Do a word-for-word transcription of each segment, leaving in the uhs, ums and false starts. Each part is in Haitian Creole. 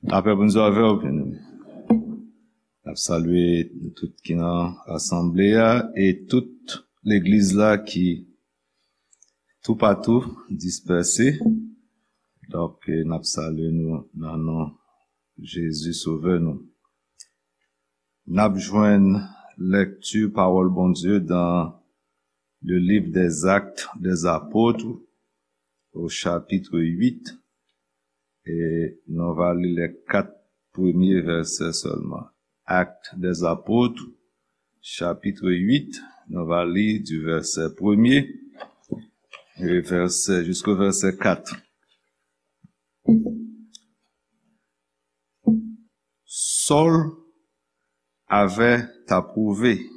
Lapè Bondye avè w, byeneme. N ap salye nou tout ki nan asanble a e tout legliz la ki toupatou dispèse. Donk, n ap salye nou nan non Jezi Sovè nou. N ap jwenn lèkti pawòl Bondye dans le livre des Actes des Apôtres, au chapitre huit, e nou va li lè kat premye vèsè sèlman. Actes des Apôtres, chapitre huit, nou va li du verset premier et verset, jusqu'au verset quatre. Saul avait approuvé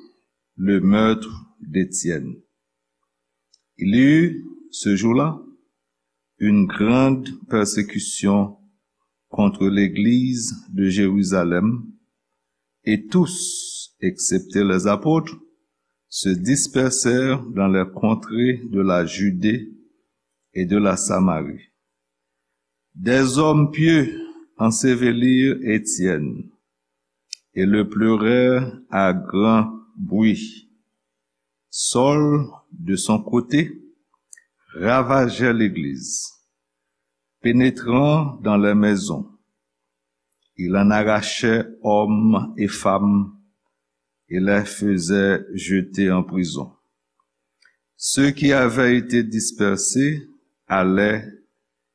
le meurtre d'Étienne. Il y eut ce jour-là une grande persécution contre l'église de Jérusalem, et tous, excepté les apôtres, se dispersèrent dans les contrées de la Judée et de la Samarie. Des hommes pieux ensevelirent Étienne et le pleurèrent à grand bruit. Saul, de son côté, ravageait l'église, pénétrant dans les maisons. Il en arrachait hommes et femmes et les faisait jeter en prison. Ceux qui avaient été dispersés allaient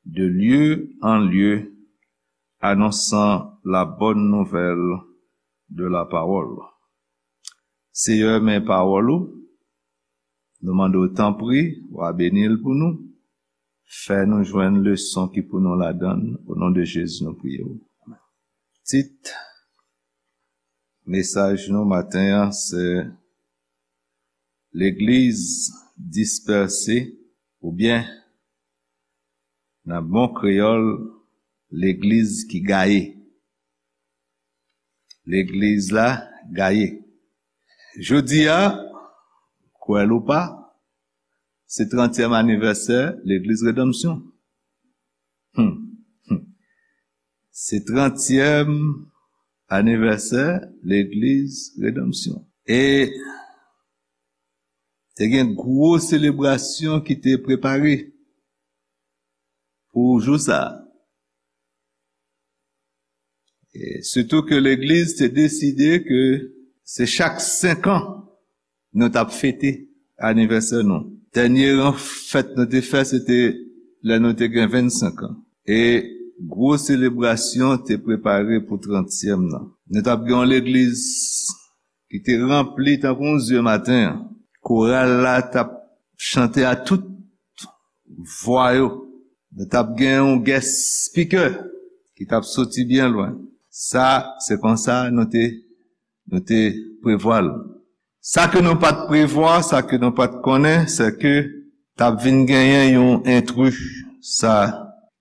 de lieu en lieu, annonçant la bonne nouvelle de la parole. Seyè, men pawòl ou, nou mande w tanpri, w a beni l pou nou. Fè nou jwenn leson ki pou nou ladan l. O non de Jezi, nou priye w. Tit mesaj nou maten an, se Legliz dispèse, oubyen, nan bon kreyòl, legliz ki gaye. Legliz la gaye. Jodi a, kwè l ou pa, se trantyèm anivèsè Legliz Redanmsyon. Hmm. Hmm. Se trantyèm anivèsè Legliz Redanmsyon. E te gen gwo selebrasyon ki te prepare pou jou sa a. E sitou ke legliz te deside ke se chak senk an nou t ap fete anivèsè nou. Dènye gran fèt nou te fè, se te lè nou te gen vennsenk an. E gwo selebrasyon te prepare pou trantyèm nan. Nou t ap gen yon legliz ki te ranpli tankou yon zye maten an. Koral la t ap chante a tout vwa yo. Nou t ap gen yon guest speaker ki t ap soti byen lwen. Sa, se konsa nou te, nou te prevwa l. Sa ke nou pa t prevwa, sa ke nou pa t konnen, se ke t ap vin genyen yon entri, sa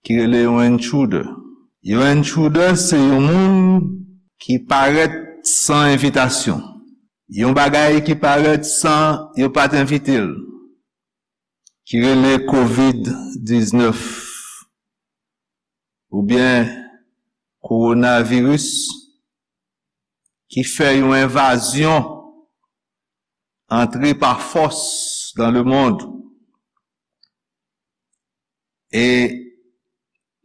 ki rele yon intruder. Yon intruder, se yon moun ki parèt san envitasyon. Yon bagay ki parèt san yo pa t envite l, ki rele kovid diznèf, oubyen kowonaviris, ki fè yon envazyon, antre pa fòs dans le monde, e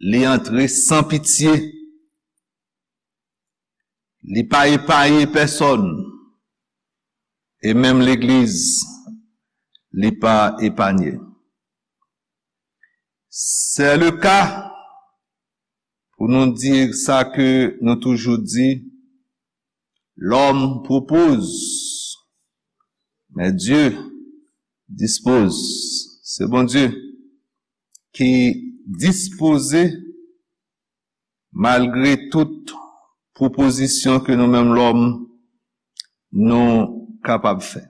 li antre san pitye, li pa epaye pèsòn, e menm legliz, li pa epanye. C'est le cas pou nou di sa ke nou toujou di, l'homme propose, mais Dieu dispose. Se Bondye ki dispoze, malgre tout pwopozisyon ke nou menm lòm nou kapab fè.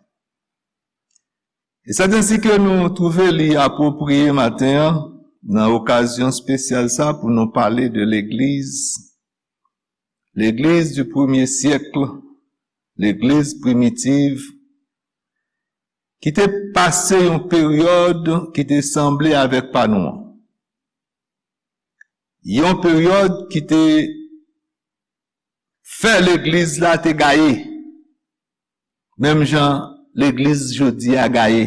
E sèt ensi ke nou twouve li apwopriye maten an, nan okazyon espesyal sa, pou nou pale de legliz, legliz du premye syèk, legliz primitiv, ki te pase yon peryòd ki te sanble avèk pa nou an. Yon peryòd ki te fè legliz la te gaye, menm jan legliz jodi a gaye.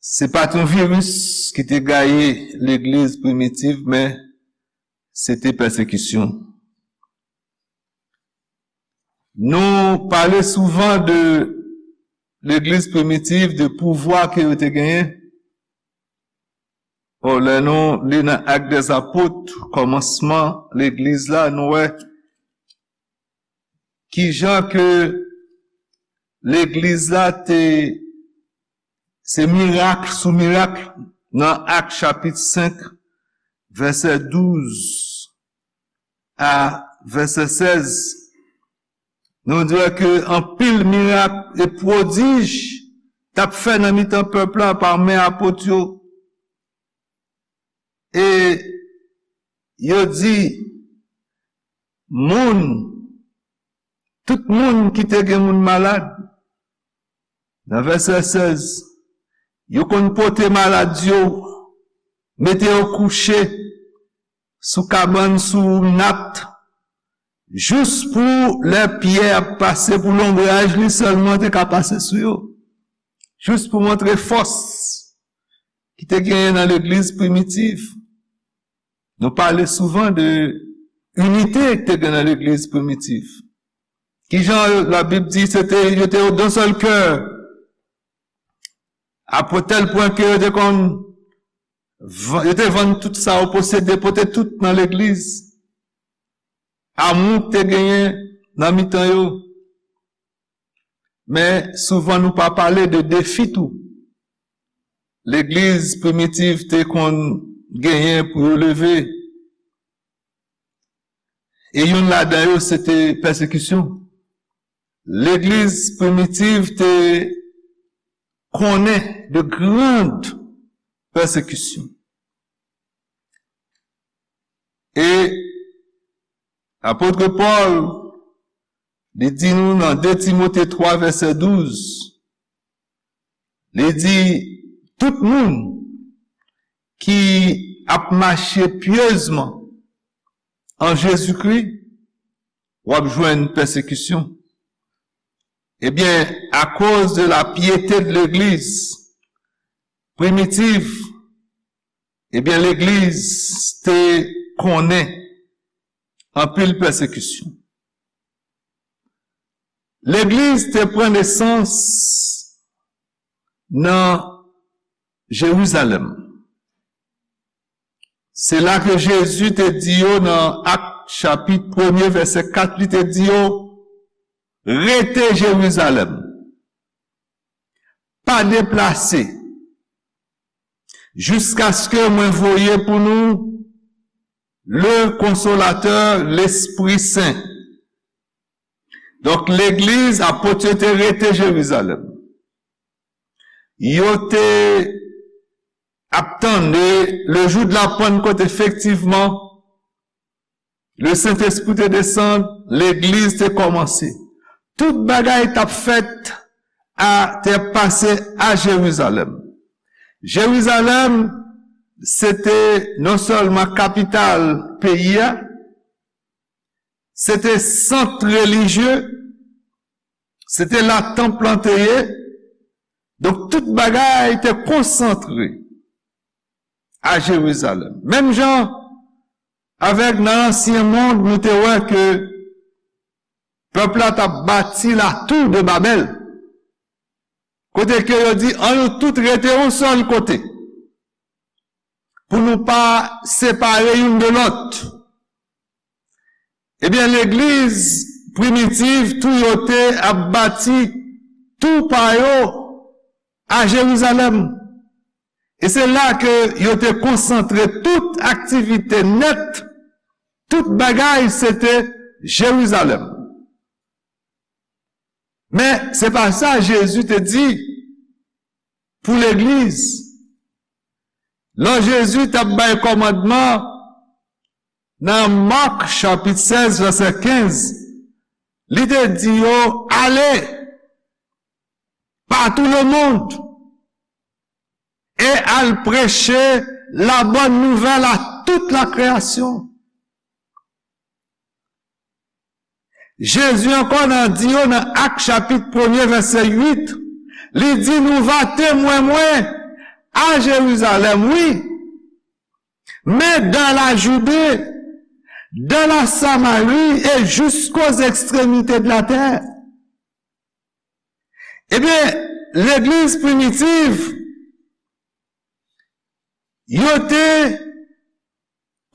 Se pa t yon viris ki te gaye legliz primitiv, men se te pèsekisyon. Nou pale souvan de legliz primitiv, de pouvwa ke yo te genyen. O, lè nou li nan Actes des Apôtres, kòmansman legliz la, nou wè kijan ke legliz la te, se mirak sou mirak nan Ak chapit senk, vèsè douz a vèsè sèz. Nou di ke anpil mirak e pwodij t ap fè nan mitan pèp la pa men apot yo. E yo di, moun, tout moun ki te gen moun malad, nan vèsè sèz, yo konn pote malad yo, mete yo kouche sou kabann, sou nat, jis pou lè Pyè ap pase, pou lonbraj li sèlman te ka pase sou yo. Jis pou montre fòs ki te genyen nan legliz primitiv. Nou pale souvan de inite ki te gen nan legliz primitiv. Kijan Labib di, se te, yo te yon sèl kè. A tèl pwen ke yo te konn, yo te vann tout sa yo posede, pote tout nan legliz. Amou te genyen nan mitan yo. Men souvan nou pa pale de defi tou legliz primitiv te konn genyen pou yo leve. E youn ladan yo, se te pèsekisyon. Legliz primitiv te konnen de grand pèsekisyon. E apot Pòl, li di nou nan de Timote twa, vèsè douz, li di, tout moun ki ap mache pyezman an Jezikri, w ap jwenn pèsekisyon. Ebyen, akoz de la pyete de legliz primitiv, ebyen, legliz te konnen anpil pèsekisyon. Legliz te pran nesans nan Jerizalèm. Se la ke Jezi te di yo nan Ak chapit premye, vèsè kat, li te di yo, rete Jerizalèm. Pa deplase. Jiskaske mwen voye pou nou le Konsolatè, Lespri Sen. Donk, legliz, apot yo te rete Jerizalèm. Yo te ap tann le jou de la Pentecôte, efektivman, le Sentespri te desann, legliz te kòmanse. Tout bagay t ap fèt a, te ap pase a Jerizalèm. Jerizalèm, se te non sèlman kapital peyi a, se te sant relijye, se te la tanp lan te ye. Donk, tout bagay te konsantre a Jerizalèm. Menm jan avèk nan ansyen mond, nou te wè ke pèp la t ap bati la tour de Babèl. Kote ke yo di, ann nou tout rete yon sèl kote, pou nou pa separe youn de lòt. Ebyen, legliz primitiv tou, yo te ap bati tou pa yo a Jerizalèm. E se la ke yo te konsantre tout aktivite nèt, tout bagay, se te Jerizalèm. Men, se pa sa Jezi te di pou legliz. Lè Jezi t ap bay kòmandman nan Mak chapit sèz, vèsè kenz, li te di yo, ale pa tout le monde e al preche la bonne nouvelle à toute la création. Jezi ankò nan di yo nan Ak chapit premye vèsè uit, li di, nou va temwen mwen a Jerizalèm, wi, men dans la Judée, dans la Samarie et jusqu'aux extrémités de la terre. Ebyen, legliz primitiv, yo te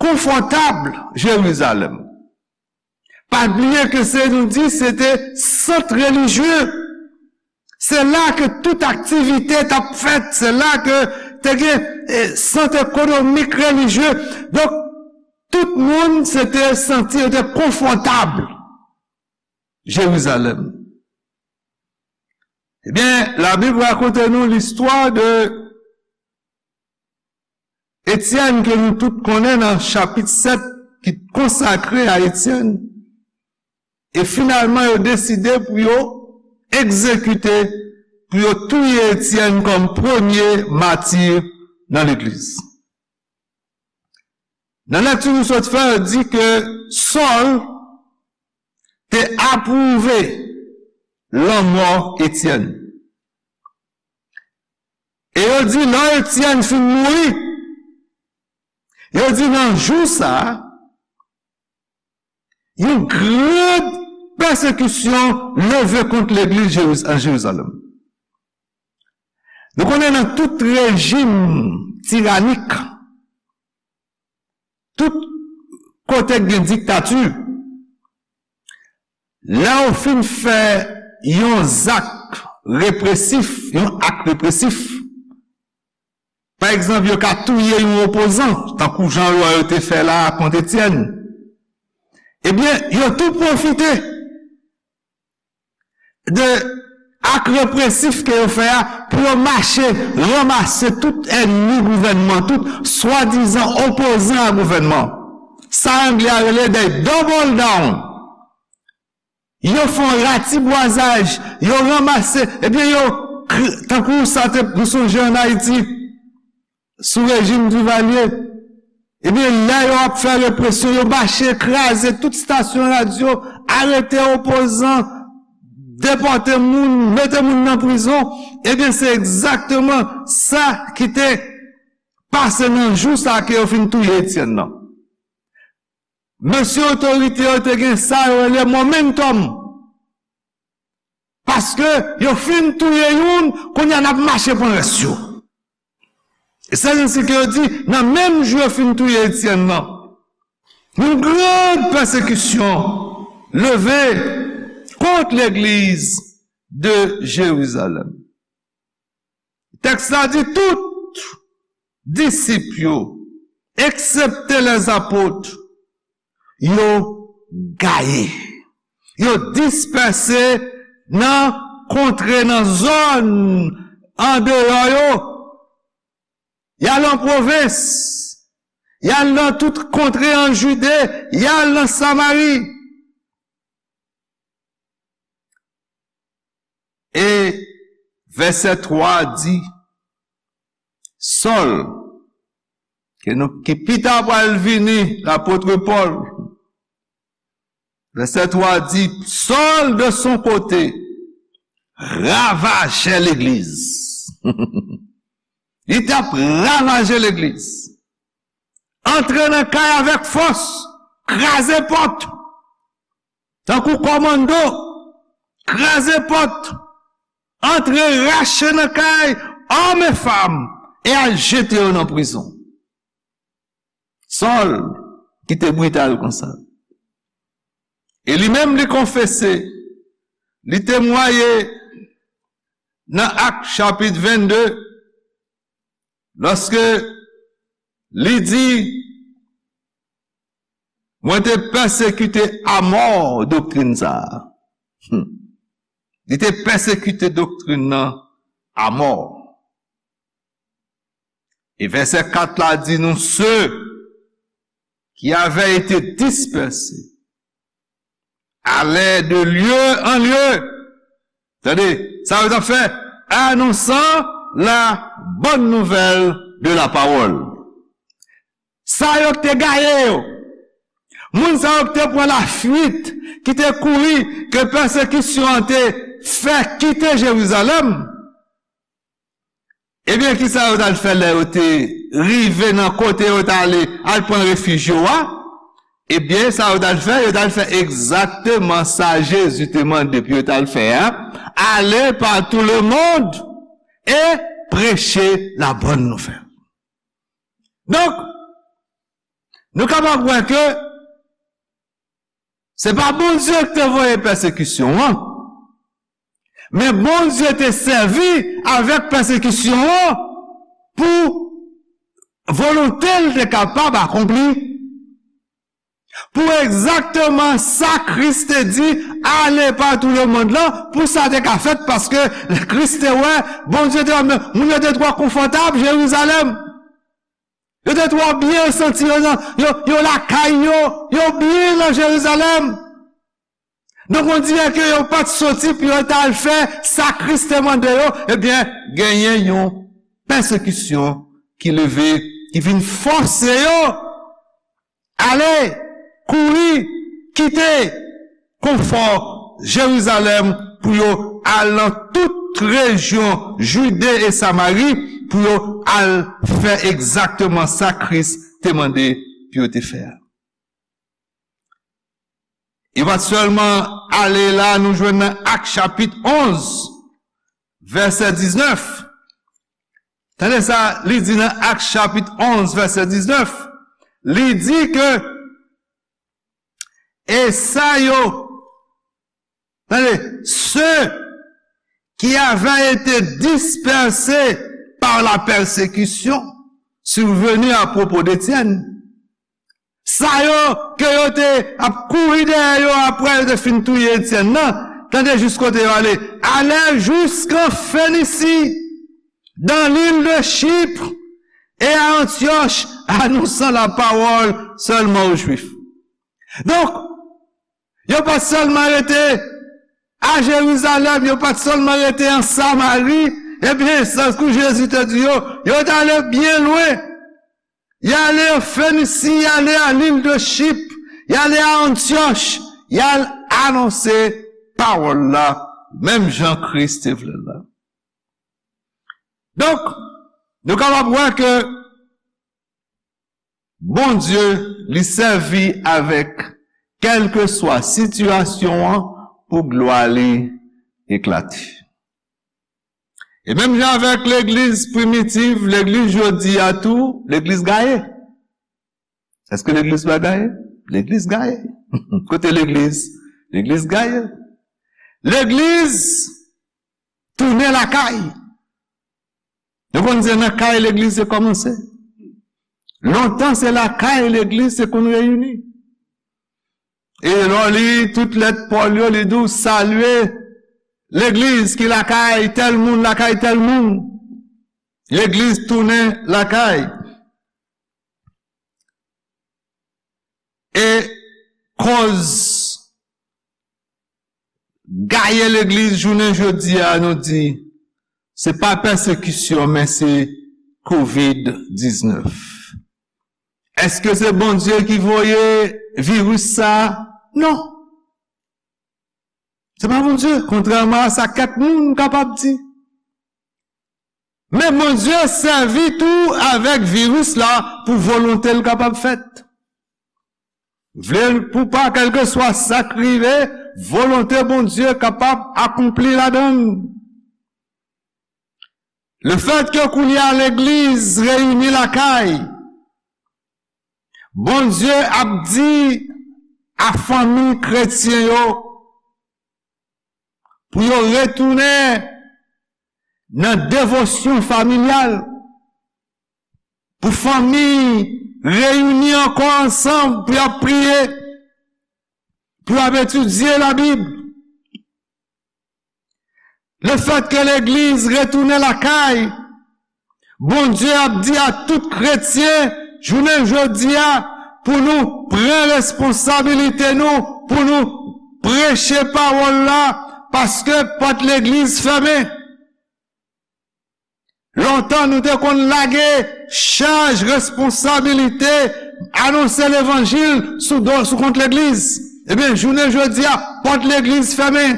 konfòtab Jerizalèm. Pa bliye ke se, nou di, se te sant relijye. Se la ke tout aktivite t ap fèt, se la ke te gen, eh, sant ekonomik, relijye. Donk, tout moun se te santi yo te konfòtab Jerizalèm. Ebyen, Labib rakonte nou listwa de Etyèn ke nou tout konnen nan chapit sèt ki konsakre a Etyèn. E finalman, yo deside pou yo egzekite, pou yo touye Etyèn kòm premye mati nan legliz. Nan lekti nou sot fè, yo di ke Sòl te apwouve lanmò Etyèn. E yo di, lè Etyèn fin mouri, yo di, nan jou sa a, yon gran pèsekisyon leve kont legliz Jeriz-, an Jerizalèm. Nou konnen nan tout rejim tiranik, tout kote k gen diktati, lè yo fin fè yon zak represif, yon ak represif, pa egzanp, yo ka touye yon opozan, tankou jan yo, yo te fè la a kont Etyèn, ebyen, yo tou pwofite de ak represif ke yo fè a pou yo mache ranmase tout ènmi gouvènman, tout swadizan opozan a gouvènman. Sa anglè a rele they double down. Yo fè yon ratibwazaj, yo ranmase, ebyen yo, kr-, tankou sa te, nou sonje ann Ayiti, sou rejim Divalye, ebyen, lè yo ap fè represyon, yo mache kraze tout estasyon radyo, arete opozan, depòte moun, mete moun nan prizon. Ebyen, se egzakteman sa ki te pase nan jou sa ke yo fin touye Etyèn nan. Mesye otorite yo te gen sa yo rele momentum. Paske yo fin touye youn, kounye a n ap mache pran rès yo. E se konsa ke yo di, nan menm jou yo fin touye Etyèn nan, yon gran pèsekisyon leve kont legliz de Jerizalèm. Tèks la di tout disip yo, eksepte lèzapot, yo gaye. Yo dispèse nan kontre, nan zòn andeyò yo. Y al an pwovens. Y al nan tout kontre an Jide. Y al nan Samari. E vèsè twa di, Sòl, ke nou, ki pita pral vini lapot Pòl, vèsè twa di, Sòl, de son kote, ravajè legliz. Li t ap ravaje legliz. Antre nan kay avèk fòs, kraze pòt. Tankou kòmando, kraze pòt, antre rache nan kay, òm e fanm, e al jete yo nan prizon. Sòl, ki te brital konsa. E li menm, li konfese, li temwaye nan Ak chapit vennde, lòske li di, mwen te pèsekite amò doktrin sa a. Hmm. Li te pèsekite doktrin nan amò. E vèsè kat la di nou, ceux qui avaient été dispersés allaient de lieu en lieu. Tande, sa yo t ap fè, annonçant la bonne nouvelle de la parole. Sa yo k te gaye yo, moun sa yo k te pran lafuit, ki te kouri, ke pèsekisyon an te fè kite Jerizalèm, ebyen, kisa yo t al fè lè yo te rive nan kote yo t ale al pran refij yo a? Ebyen, sa yo t al fè, yo t al fè egzakteman sa Jezi te mande pou yo t al fè a. Allez par tout le monde et prêchez la bonne nouvelle. Donk, nou kapab wè ke se pa Bondye ki te voye pèsekisyon an, men Bondye te sèvi avèk pèsekisyon an pou volonte l te kapab akonpli. Pou egzakteman sa Kris te di, allez par tout le monde lan, pou sa te ka fèt, paske Kris te wè, Bondye te wè, men moun yo te twò konfòtab Jerizalèm. Yo te twò byen santi yo nan, yo, yo lakay yo, yo byen nan Jerizalèm. Donk, on dirè ke yo pa t soti pou yo t al fè sa Kris te mande yo, ebyen, genyen yon pèsekisyon ki leve, ki vin fòse yo ale, kouri, kite konfò Jerizalèm pou yo al nan tout rejyon Jide e Samari, pou yo al fè egzakteman sa Kris te mande pou yo te fè a. Yo pa t sèlman ale la, nou jwenn nan Ak chapit onz, vèsè diznèf. Tande sa, li di nan Ak chapit onz, vèsè diznèf, li di ke, et ça yo, tande, ceux qui avaient été dispersés par la persécution survenue à propos d'Étienne. Sa yo ke yo te ap kouri dèyè yo apre yo te fin touye Etyèn nan, tande jis kote yo ale. Allèrent jusqu'en Phénicie, dans l'île de Chypre, et à Antioche, annonçant la parole seulement aux Juifs. Donk, yo pa t sèlman rete a Jerizalèm, yo pa t sèlman rete an Samari, ebyen, tankou Jezi te di yo, yo t ale byen lwen. Y ale an Fenisi, y ale a lil de Chip, y ale a Antyòch, y al anonse pawòl la, menm jan Kris te vle l la. Donk, nou kapab wè ke Bondye, li sèvi avèk kèlkeswa sitiyasyon an pou glwa li eklate. E menm jan avèk legliz primitiv, legliz jodi a tou, legliz gaye. Èske legliz pa gaye? Legliz gaye. Kote legliz? Legliz gaye. Legliz tounen lakay. Nou konn se nan kay legliz te kòmanse. Lontan se lakay legliz te konn reyini. E lè w li tout lèt Pòl yo, li di w salye legliz ki lakay tèl moun, lakay tèl moun. Legliz tounen lakay. E kòz gaye legliz jounen jodi a, nou di, se pa pèsekisyon, men se kovid diznèf. Èske se Bondye ki voye viris sa a? Non. Se pa Bondye, kontrèman a sa kèk moun kapab di. Men Bondye sèvi tou avèk viris la pou volonte l kapab fèt. Vle l pou pa, kèlkeswa sa k rive, volonte Bondye kapab akonpli ladan l. Lefètke kounye a legliz reyini lakay, Bondye ap di a fanmi kretyen yo pou yo retounen nan devosyon familyal, pou fanmi reyini ankò ansanm, pou y ap priye, pou y ap etidye Labib. Lefètke legliz retounen lakay, Bondye ap di a tout kretyen, jounen jodi a, pou nou pran responsabilite nou, pou nou preche pawòl la, paske pòt legliz fèmen. Lontan, nou te konn lage chaj responsabilite anonse levanjil sou do, sou kont legliz. Ebyen, jounen jodi a, pòt legliz fèmen.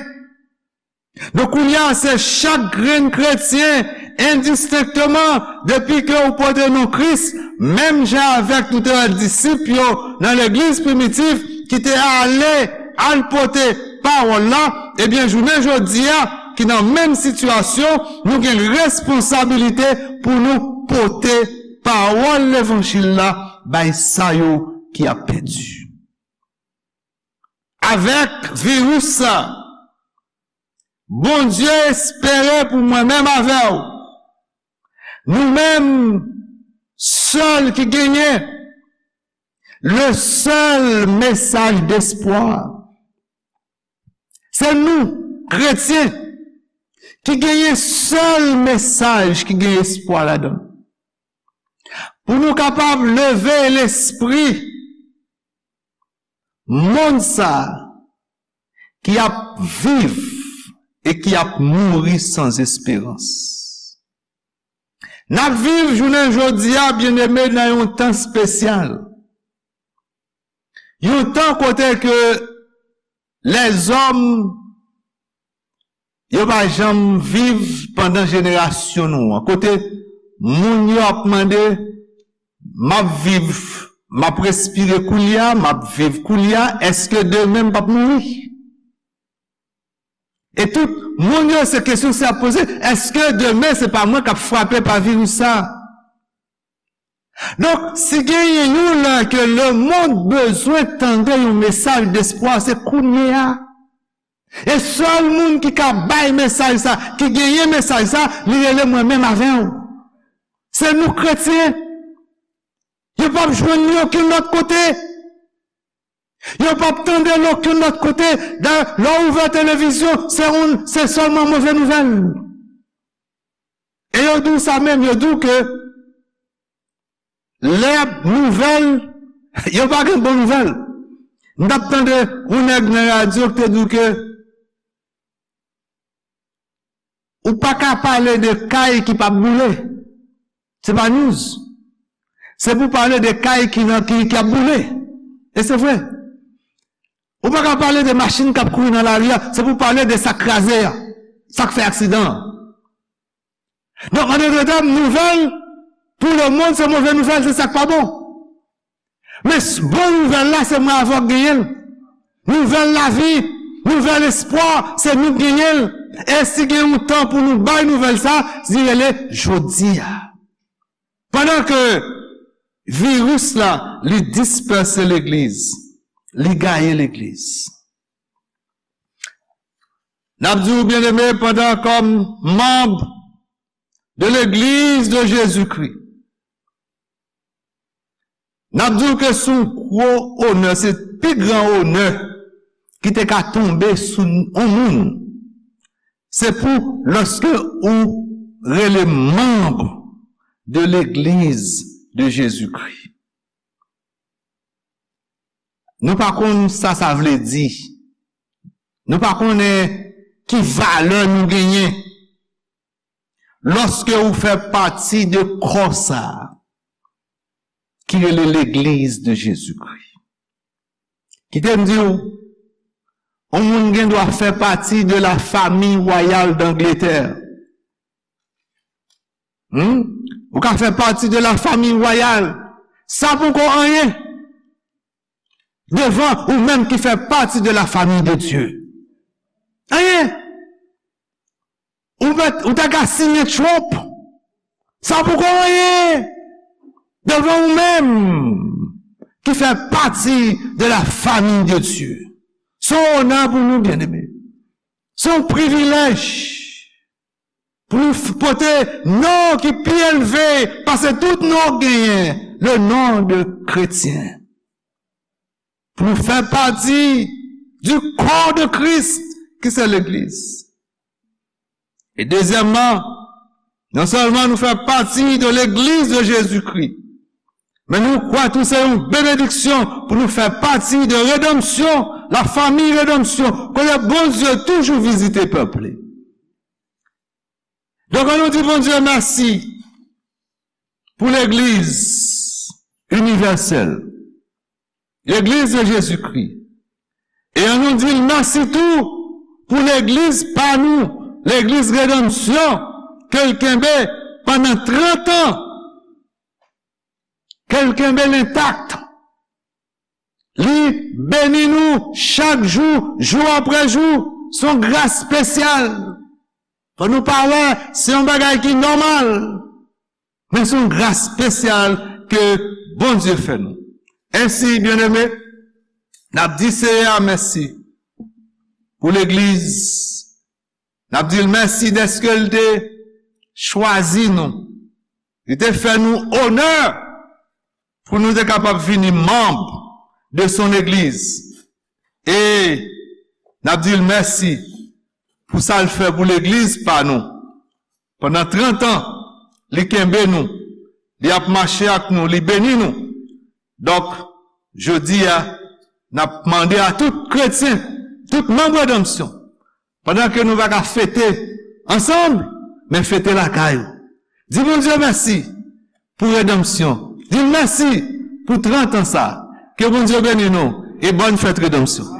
Donk, kounye a, se chak grenn kretyen, endistenkteman, depi ke ou pote non Kris, menm jan avèk nou te wè disip yo nan legliz primitif ki te ale al pote pawòl la, ebyen, jounen jodi a, ki nan menm sitiyasyon, nou gen responsabilite pou nou pote pawòl levanjil la bay sa yo ki ap pèdi. Avèk viris sa, Bondye espere pou mwen menm avè w, nou menm sèl ki genyen le sèl mesaj despwa. Se nou, kretyen, ki genyen sèl mesaj ki gen espwa ladan l. Pou nou kapab leve lespri monn sa a ki ap viv e ki ap mouri san esperans. N ap viv jounen jodi a, byeneme, nan yon tan espesyal. Yon tan kote ke lèzòm yo pa janm viv pandan jenerasyon nou an. Kote moun yo ap mande, "M ap viv, m ap respire koulye a, m ap viv koulye a, èske demen m p ap mouri?" E tout moun yo, se kesyon sa y ap poze, "Èske demen se pa mwen k ap frape pa viris sa a?" Donk, si genyen yon lè ke lemonn bezwen tande yon mesaj despwa, se kounye a. E sèl moun ki ka bay mesaj sa, ki genyen mesaj sa, li rele mwen menm avè w. Se nou kretyen. Yo p ap jwenn li okenn lòt kote. Yo p ap tande l okenn lòt kote. Dayè, lè w ouvè televizyon, se yon, se sèlman move nouvèl. E yo di w sa menm, yo di w ke lè nouvèl, yo pa gen bon nouvèl. M t ap tande yon nèg nan radyo ki te di w ke ou pa ka pale de kay ki p ap boule. Se pa news. Se pou pale de kay ki nan, ki, ki ap boule. E se vre. Ou pa ka pale de machin k ap kouri nan lari a. Se pou pale de sa k kraze a. Sa k fè aksidan an. Donk, an de tèm, nouvèl pou lemonn, se move nouvèl, se sa k pa bon. Men s-, bon nouvèl la, se mwen avè w k genyen l. Nouvèl lavi, nouvèl espwa, se nou k genyen l. E si gen yon tan pou nou bay nouvèl sa, li rele jodi a. Pandan ke viris la, li dispèse legliz, li gaye legliz. N ap di w, byeneme, pandan kòm manm de legliz de Jezikri, n ap di w ke se yon gwo onè, se pi gran onè ki te ka tonbe sou yon moun. Se pou lòske ou rele manm de legliz de Jezikri. Nou pa konn sa sa vle di. Nou pa konnen ki valè nou genyen lòske ou fè pati de kò sa a ki rele Legliz de Jezikri. Kite m di w, yon moun gen dwa fè pati de la famille royale d'Angleterre. Hmm? Ou ka fè pati de la famille royale. Sa poko anyen devan ou menm ki fè pati de la famille de Dieu. Anyen. Ou mèt, ou ta ka siyen Trump. Sa poko anyen devan ou menm ki fè pati de la famille de Dieu. Se yon onè pou nou, byeneme. Se yon privilèj pou nou f-, pote non ki pi elve pase tout non genyen, le nom de kretyen. Pou nou fè pati du corps de Christ, ki se legliz. E dezyèmman, non sèlman nou fè pati de legliz de Jezikri, men nou kwè tou se yon benediksyon pou nou fè pati de redanmsyon, la famille rédemption, kote Bondye toujou vizite pèp li. Donk, ann nou di Bondye mèsi pou legliz inivèsèl, legliz de Jezikri. E ann nou di l mèsi tou pou legliz pa nou, legliz Redanmsyon, ke l kenbe pandan trant an, ke l kenbe l entak. Li beni nou chak jou, jou apre jou. Se yon gras espesyal. Fò nou pa wè se yon bagay ki nòmal, men se yon gras espesyal ke Bondye fè nou. Ensi, byeneme, n ap di Seyè a mèsi pou legliz. N ap di l mèsi dèske l te chwazi nou. Li te fè nou onè pou nou te kapab vini manm de son legliz. E n ap di l mèsi pou sa l fè pou legliz pa nou. Pandan trant an, li kenbe nou, li ap mache ak nou, li beni nou. Donk, jodi a, n ap mande a tout kretyen, tout manm Redanmsyon, pandan ke nou pa ka fete ansanm, men fete lakay ou. Di Bondye mèsi pou Redanmsyon. Di l mèsi pou trant an sa. Ke Bondye beni nou e bòn fèt Redanmsyon.